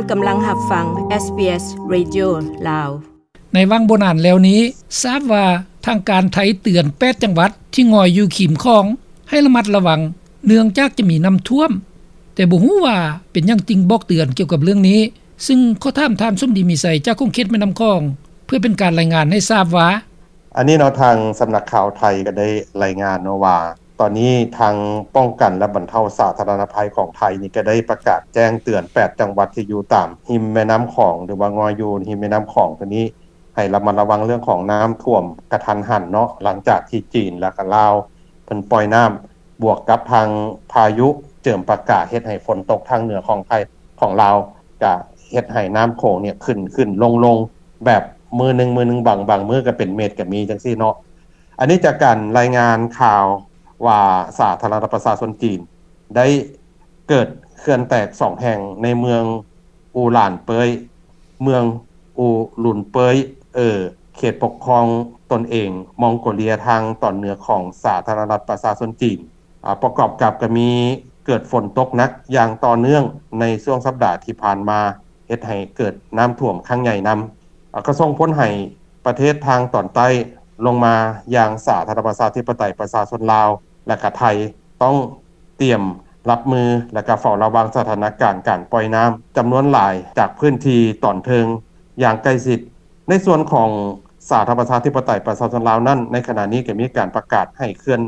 ກຳລັງຮັບຟັງ ເອສບີເອສ ເຣດິໂອ ລາວ. ໃນຫວ່າງບໍ່ນານແລ້ວນີ້ ຊາບວ່າທາງການໄທເຕືອນແປດຈັງຫວັດທີ່ງອຍຢູ່ຂິມຂອງໃຫ້ລະມັດລະວັງ ເນື່ອງຈາກຈະມີນ້ຳຖ້ວມ, ແຕ່ບໍ່ຮູ້ວ່າເປັນຫຍັງຈຶ່ງບອກເຕືອນກ່ຽວກັບເລື່ອງນີ້, ຊຶ່ງຂໍຖາມທ່ານສົມດີ ມີໄຊ ຈາກຂົງເຂດແມ່ນ້ຳຂອງ ເພື່ອເປັນການລາຍງານໃຫ້ຊາບວ່າ. ອັນນີ້ເນາະ ທາງສຳນັກຂ່າວໄທກໍໄດ້ລາຍງານເນາະວ່າ ຕອນນີ້ທາງປ້ອງກັນ ແລະ ບັນເທົາສາທາລະນະໄພຂອງໄທນີ້ ກໍໄດ້ປະກາດແຈ້ງເຕືອນແປດຈັງຫວັດທີ່ຢູ່ຕາມຮິມແມ່ນ້ຳຂອງ ຫຼືວ່າງອຍຢູ່ຮິມແມ່ນ້ຳຂອງຕົວນີ້ ໃຫ້ລະມັດລະວັງເລື່ອງຂອງນ້ຳຖ້ວມກະທັນຫັນເນາະ ຫຼັງຈາກທີ່ຈີນ ແລະ ກະລາວ ເພິ່ນປ່ອຍນ້ຳ ບວກກັບທາງພາຍຸເຈີມປາກາ ເຮັດໃຫ້ຝົນຕົກທາງເໜືອຂອງໄທ ຂອງລາວ ກະເຮັດໃຫ້ນ້ຳໂຂງນີ້ຂຶ້ນ ຂຶ້ນ ລົງ ລົງ ແບບມື້ໜຶ່ງ ມື້ໜຶ່ງ ບາງ ບາງມື້ກະເປັນເມັດກະມີ ຈັ່ງຊີ້ເນາະ. ອັນນີ້ຈາກການລາຍງານຂ່າວວ່າ ສາທາລະນະລັດປະຊາຊົນຈີນ ໄດ້ເກີດເຂື່ອນແຕກສອງແຫ່ງໃນເມືອງອູຫຼານເປີຍ ເມືອງອູລຸນເປີຍ ເອີ ເຂດປົກຄອງຕົນເອງມອງໂກເລຍທາງຕອນເໜືອຂອງສາທາລະນະລັດປະຊາຊົນຈີນ. ອາ ປະກອບກັບກະມີເກີດຝົນຕົກໜັກຢ່າງຕໍ່ເນື່ອງໃນຊ່ວງສັບດາທີ່ຜ່ານມາ ເຮັດໃຫ້ເກີດນ້ຳຖ້ວມຄັ້ງໃຫຍ່ນຳ ອາ ກະສົ່ງຜົນໃຫ້ປະເທດທາງຕອນໃຕ້ລົງມາຢ່າງສາທາລະນະລັດປະຊາທິປະໄຕປະຊາຊົນລາວ ແລະ ກະໄທ ຕ້ອງຕຽມຮັບມື ແລະ ກະເຝົ້າລະວັງສະຖານະການການປ່ອຍນ້ຳຈຳນວນຫຼາຍຈາກພື້ນທີ່ຕອນເທິງຢ່າງໃກ້ຊິດ. ໃນສ່ວນຂອງສາທາລະນະລັດປະຊາທິປະໄຕປະຊາຊົນລາວນັ້ນ ໃນຂະນະນີ້ກະມີການປະກາດໃຫ້ເຂື່ອນ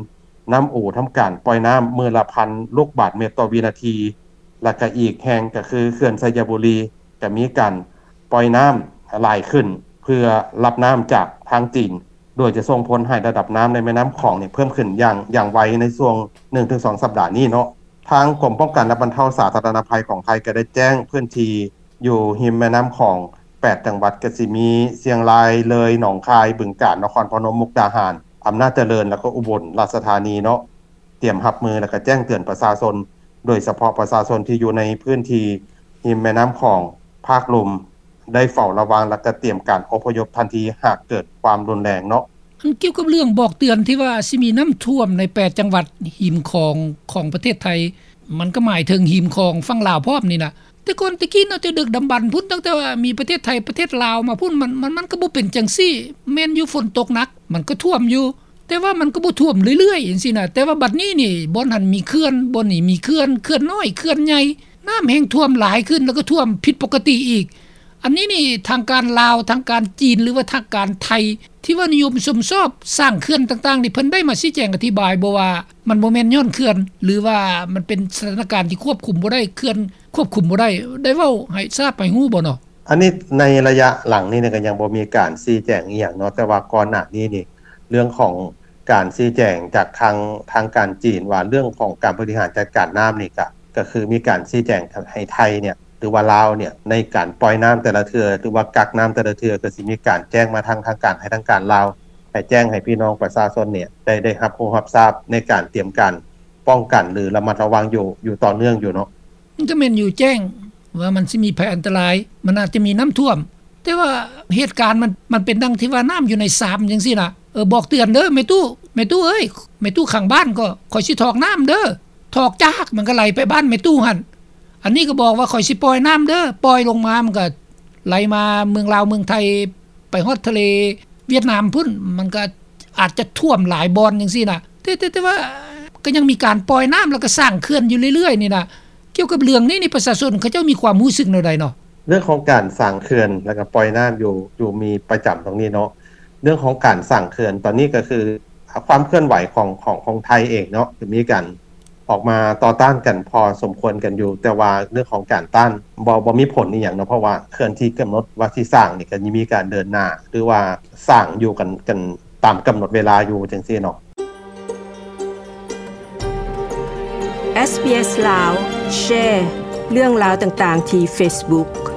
ນ້ຳອູທຳການປ່ອຍນ້ຳມື້ລະພັນລູກບາດເມັດຕໍ່ວິນາທີ ແລະ ກະອີກແຫ່ງກະຄືເຂື່ອນໄຊຍະບູລີ ກະມີການປ່ອຍນ້ຳຫຼາຍຂຶ້ນ ເພື່ອຮັບນ້ຳຈາກທາງຈີນ ໂດຍຈະສົ່ງຜົນໃຫ້ລະດັບນ້ຳໃນແມ່ນ້ຳຂອງນີ້ເພີ່ມຂຶ້ນຢ່າງ ຢ່າງໄວໃນຊ່ວງໜຶ່ງເຖິງສອງສັບດານີ້ເນາະ. ທາງກົມປ້ອງກັນ ແລະ ບັນເທົາສາທາລະນະໄພຂອງໄທ ກະໄດ້ແຈ້ງພື້ນທີ່ຢູ່ຮິມແມ່ນ້ຳຂອງແປດຈັງຫວັດ ກະຊິມີຊຽງລາຍ, ເລີຍ, ໜອງຄາຍ, ບຶງການ, ນະຄອນພະນົມ, ມຸກດາຫານ, ອຳນາດຈະເລີນ ແລະ ກະອຸບົນລາຊະທານີເນາະ ຕຽມຮັບມື ແລະ ກະແຈ້ງເຕືອນປະຊາຊົນ ໂດຍສະເພາະປະຊາຊົນທີ່ຢູ່ໃນພື້ນທີ່ລິມແມ່ນ້ຳຂອງພາກລຸ່ມ ໄດ້ເຝົ້າລະວັງ ແລະ ກະຕຽມການອົບພະຍົບທັນທີຫາກເກີດຄວາມຮຸນແຮງເນາະ. ອັນກ່ຽວກັບເລື່ອງບອກເຕືອນທີ່ວ່າຊິມີນ້ຳຖ້ວມໃນແປດຈັງຫວັດຮິມຂອງຂອງປະເທດໄທ ມັນກະໝາຍເຖິງຮິມຂອງຝັ່ງລາວພ້ອມນີ້ນະ. ແຕ່ກ່ອນແຕ່ກີ້ເນາະ ແຕ່ດຶກດຳບັນພຸ້ນ ຕັ້ງແຕ່ວ່າມີປະເທດໄທປະເທດລາວມາພຸ້ນ ມັນ ມັນ ມັນກະບໍ່ເປັນຈັ່ງຊີ້. ແມ່ນຢູ່ຝົນຕົກໜັກ ມັນກະຖ້ວມຢູ່ ແຕ່ວ່າມັນກະບໍ່ຖ້ວມເລື້ອຍໆຈັ່ງຊີ້ນະ. ແຕ່ວ່າບັດນີ້ນີ້ ບ່ອນຫັ້ນມີເຂື່ອນ ບ່ອນນີ້ມີເຂື່ອນ ເຂື່ອນນ້ອຍ ເຂື່ອນໃຫຍ່ ນ້ຳແຮ່ງຖ້ວມຫຼາຍຂຶ້ນ ແລ້ວກະຖ້ວມຜິດປົກກະຕິອີກ. ອັນນີ້ນີ້ທາງການລາວ ທາງການຈີນ ຫຼືວ່າທາງການໄທ ທີ່ວ່ານິຍົມຊົມຊອບສ້າງເຂື່ອນຕ່າງໆນີ້ ເພິ່ນໄດ້ມາຊີ້ແຈງອະທິບາຍບໍ່ວ່າ ມັນບໍ່ແມ່ນຍ້ອນເຂື່ອນ ຫຼືວ່າມັນເປັນສະຖານະການທີ່ຄວບຄຸມບໍ່ໄດ້ ເຂື່ອນຄວບຄຸມບໍ່ໄດ້ ໄດ້ເວົ້າໃຫ້ຊາບໃຫ້ຮູ້ບໍ່ເນາະ? ອັນນີ້ໃນໄລຍະຫຼັງນີ້ກະຍັງບໍ່ມີການຊີ້ແຈງອີ່ຫຍັງເນາະ ແຕ່ວ່າກ່ອນໜ້ານີ້ນີ້ ເລື່ອງຂອງການຊີ້ແຈງຈາກທາງ ທາງການຈີນວ່າ ເລື່ອງຂອງການບໍລິຫານຈັດການນ້ຳນີ້ກະ ກະຄືມີການຊີ້ແຈງໃຫ້ໄທນີ້ ຫຼືວ່າລາວນີ້ ໃນການປ່ອຍນ້ຳແຕ່ລະເທື່ອ ຫຼືວ່າກັກນ້ຳແຕ່ລະເທື່ອ ກະຊິມີການແຈ້ງມາທາງທາງການ ໃຫ້ທາງການລາວ ໃຫ້ແຈ້ງໃຫ້ພີ່ນ້ອງປະຊາຊົນນີ້ ໄດ້ ໄດ້ຮັບຮູ້ຮັບຊາບໃນການຕຽມການປ້ອງກັນ ຫຼື ລະມັດລະວັງຢູ່ ຢູ່ຕໍ່ເນື່ອງຢູ່ເນາະ. ມັນກະແມ່ນຢູ່ແຈ້ງວ່າມັນຊິມີໄພອັນຕະລາຍ ມັນອາດຈະມີນ້ຳຖ້ວມ ແຕ່ວ່າເຫດການມັນ ມັນເປັນດັ່ງທີ່ວ່ານ້ຳຢູ່ໃນຊາມຈັ່ງຊີ້ນະ. ເອີ ບອກເຕືອນເດີ ແມ່ຕູ້ ແມ່ຕູ້ເອີຍ ແມ່ຕູ້ຂ້າງບ້ານກໍ ຂ້ອຍຊິຖອກນ້ຳເດີ ຖອກຈາກ ມັນກະໄຫຼໄປບ້ານແມ່ຕູ້ຫັ້ນ. ອັນນີ້ກະບອກວ່າຂ້ອຍຊິປ່ອຍນ້ຳເດີ ປ່ອຍລົງມາ ມັນກະໄຫຼມາເມືອງລາວເມືອງໄທ ໄປຮອດທະເລຫວຽດນາມພຸ້ນ ມັນກະອາດຈະຖ້ວມຫຼາຍບ່ອນຈັ່ງຊີ້ນະ. ແຕ່ ແຕ່ ແຕ່ວ່າກະຍັງມີການປ່ອຍນ້ຳ ແລ້ວກະສ້າງເຂື່ອນຢູ່ເລື້ອຍໆນີ້ນະ. ກ່ຽວກັບເລື່ອງນີ້ນີ້ ປະຊາຊົນເຂົາເຈົ້າມີຄວາມຮູ້ສຶກແນວໃດເນາະ? ເລື່ອງຂອງການສ້າງເຂື່ອນ ແລ້ວກະປ່ອຍນ້ຳຢູ່ ຢູ່ມີປະຈຳຕົງນີ້ເນາະ. ເລື່ອງຂອງການສ້າງເຂື່ອນ ຕອນນີ້ກະຄື ອາ ຄວາມເຄື່ອນໄຫວຂອງ ຂອງ ຂອງໄທເອງເນາະ ກະມີການອອກມາຕໍ່ຕ້ານກັນພໍສົມຄວນກັນຢູ່ ແຕ່ວ່າເລື່ອງຂອງການຕ້ານ ບໍ່ ບໍ່ມີຜົນອີ່ຫຍັງເນາະ ເພາະວ່າເຂື່ອນທີ່ກຳນົດວ່າຊິສ້າງນີ້ ກະຍັງມີການເດີນໜ້າ ຫຼືວ່າສ້າງຢູ່ກັນ ກັນຕາມກຳນົດເວລາຢູ່ຈັ່ງຊີ້ເນາະ. ເອສບີເອສ ລາວ ແຊເລື່ອງລາວຕ່າງໆທີ່ເຟສບຸກ.